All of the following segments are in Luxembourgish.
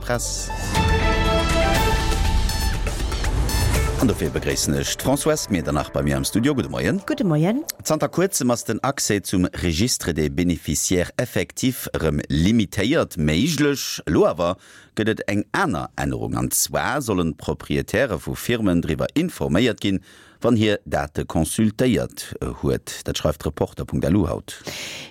Press. An dofir begréissen ech d'Françoise Medernach bei mir am Studio. Gudde Moien. Gudde Moien. Zanter kuerzem ass den Accès zum Registre des bénéficiaires effectifs erëm limitéiert méiglech. Elo awer gëtt et eng aner Ännerung, an zwar sollen d'Proprietäre vu Firmen driwwer informéiert ginn, wann hir Date consultéiert huet. Dat schreift Reporter.lu haut.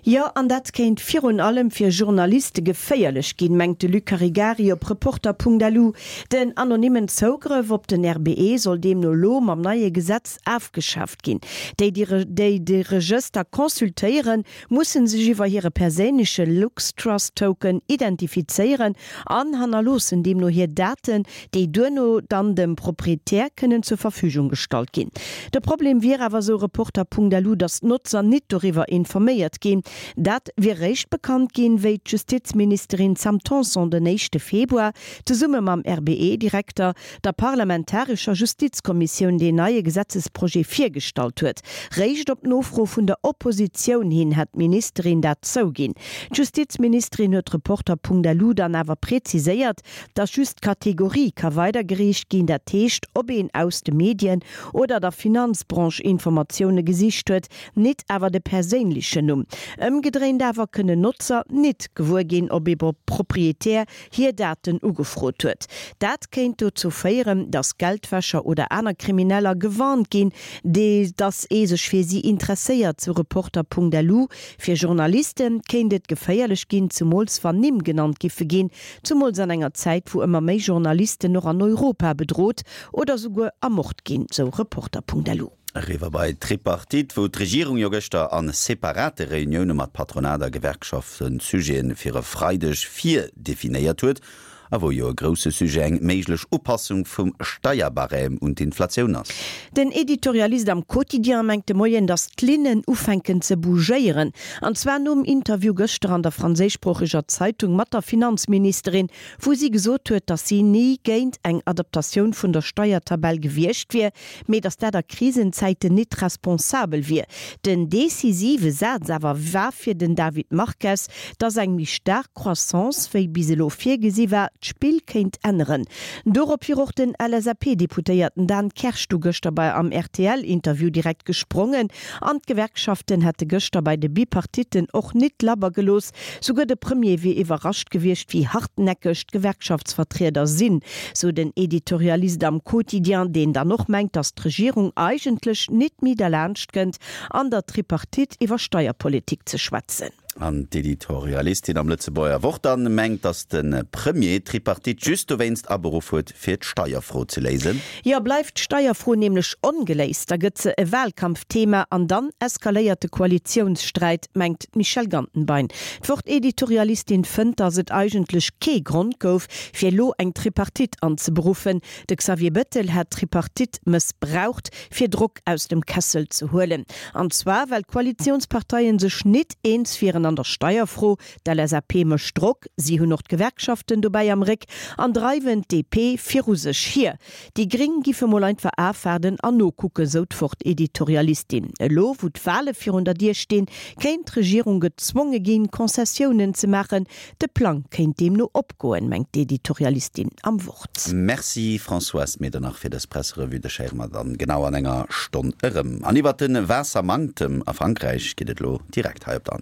Jo, an dat kéint virun allem fir Journaliste geféierlech ginn, mengt de Luc Caregari op Reporter.lu. Den anonymmen Zougrëff op den RBE soll deemno elo mam neie Gesetz afgeschaaft ginn. Déi, déi de Regëster consultéieren, mussen sech iwwer hire perséinleche LuxTrust-Token identifizéieren an hannerloossen deemno hir Daten, déi duerno dann dem Proprietär kënnen zur Verfügung gestallt ginn. De Problem wier awer, sou Reporter.lu, datt d'Notzer nit doriwwer informéiert ginn. Dat wier réischt bekannt ginn, wéi d'Justizministerin Sam Tanson den éischte Februar zesumme mam RBE-Direkter der parlamentarescher Justizkommissioun deen neie Gesetzesprojet virgestallt huet. Réischt op Nofro vun der Oppositioun hin hätt d'Ministerin dat zouginn. D'Justizministerin huet Reporter.lu dann awer preziséiert, datt just d'Kategorie ka weidergereecht ginn, dat heescht ob een aus de Medien oder der Finanzbranche Informatioune gesicht huet, nit awer de perséinlechen Numm. Ëmgedréint awer kënnen Notzer nit gewuer ginn, ob ee Proprietär hir Daten ugefrot huet. Dat kéint dozou féieren, datt Geldwäscher oder aner Krimineller gewarnt ginn, datt ee sech fir si interesséiert, sou Reporter.lu. Fir Journaliste kéint et geféierlech ginn, zumools wann Nimm genannt giffe ginn, zumools an enger Zäit, wou ëmmer méi Journalisten och an Europa bedrot oder souguer ermort ginn, sou Reporter.lu. Eriwwer bei d'Tripartite, wou d'Regierung jo gëschter a separate Reunioune mat Patronat a Gewerkschaften d'Sujete fir e Freideg virdefinéiert huet a wou jo e grousse Sujet eng méiglech Upassung vum Steierbarème un d'Inflatioun ass. Den Editorialist am Quotidien mengt de Moien, datt d'Linnen ufänken ze bougéieren. An zwar nom Interview gëschter an der franséischsproocheger Zeitung mat der Finanzministerin, wou si gesot huet, datt si ni géint eng Adaptatioun vun der Steiertabell gewiescht wier, mee datt dat a Krisenzäiten nit responsabel wier. Den decisive Saz awer war fir den David Marques, datt eng méi staark Croissance wéi bis elo virgesi war, d'Spill kéint änneren. Dorop wier och den LSAP-Deputéierten Dan Kersch du gëschter bei am RTL-Interview direkt gesprongen an d'Gewerkschaften hätte gëschter bei de Bipartitten och nit labber gelooss, Souguer de Premier wier iwwerrascht gewiescht, wéi hartnäckeg d'Gewerkschaftsvertrieder sinn, sou den Editorialist am Quotidien, deen dann och mengt, datt d'Regierung eigentlech nit méi derlaanscht kënnt, an der Tripartite iwwer Steierpolitik ze schwätzen. An d'Editorialistin am Lëtzebuerger Wort dann mengt, datt de Premier d'Tripartite just dowéinst aberuff huet, fir d'Steierfro ze léisen. Jo, bleift d'Steierfro nämlech ongeléist, da gëtt se e Wahlkampfthema an dann eskaléiert de Koalitiounssträit, mengt d'Michèle Gantenbein. D'Wort-Editorialistin fënnt, datt et eigentlech kee Grond gouf, fir elo eng Tripartite anzeberuffen. De Xavier Bettel hätt d'Tripartite mëssbraucht, fir Drock aus dem Kessel ze huelen. An zwar well d'Koalitiounsparteien sech nit eens wieren an der Steierfro. D'LSAP mécht Drock, si hunn och d'Gewerkschaften dobäi am Réck an dreiwen d'DP viru sech hier. Déi Gréng giffe mol einfach afwaarden an nokucken, sou d'Wort-Editorialistin. Elo wou d'Wale virun der Dier stinn, kéint d'Regierung gezwonge ginn, Concessiounen ze maachen. De Plang kéint deemno opgoen, mengt d'Editorialistin am Wort. Merci Françoise Medernach fir dës Presserevue. Dech héiere mer dann genau an enger Stonn erëm. An iwwert de Waassermanktem a Frankräich geet et elo direkt hei op der Antenn.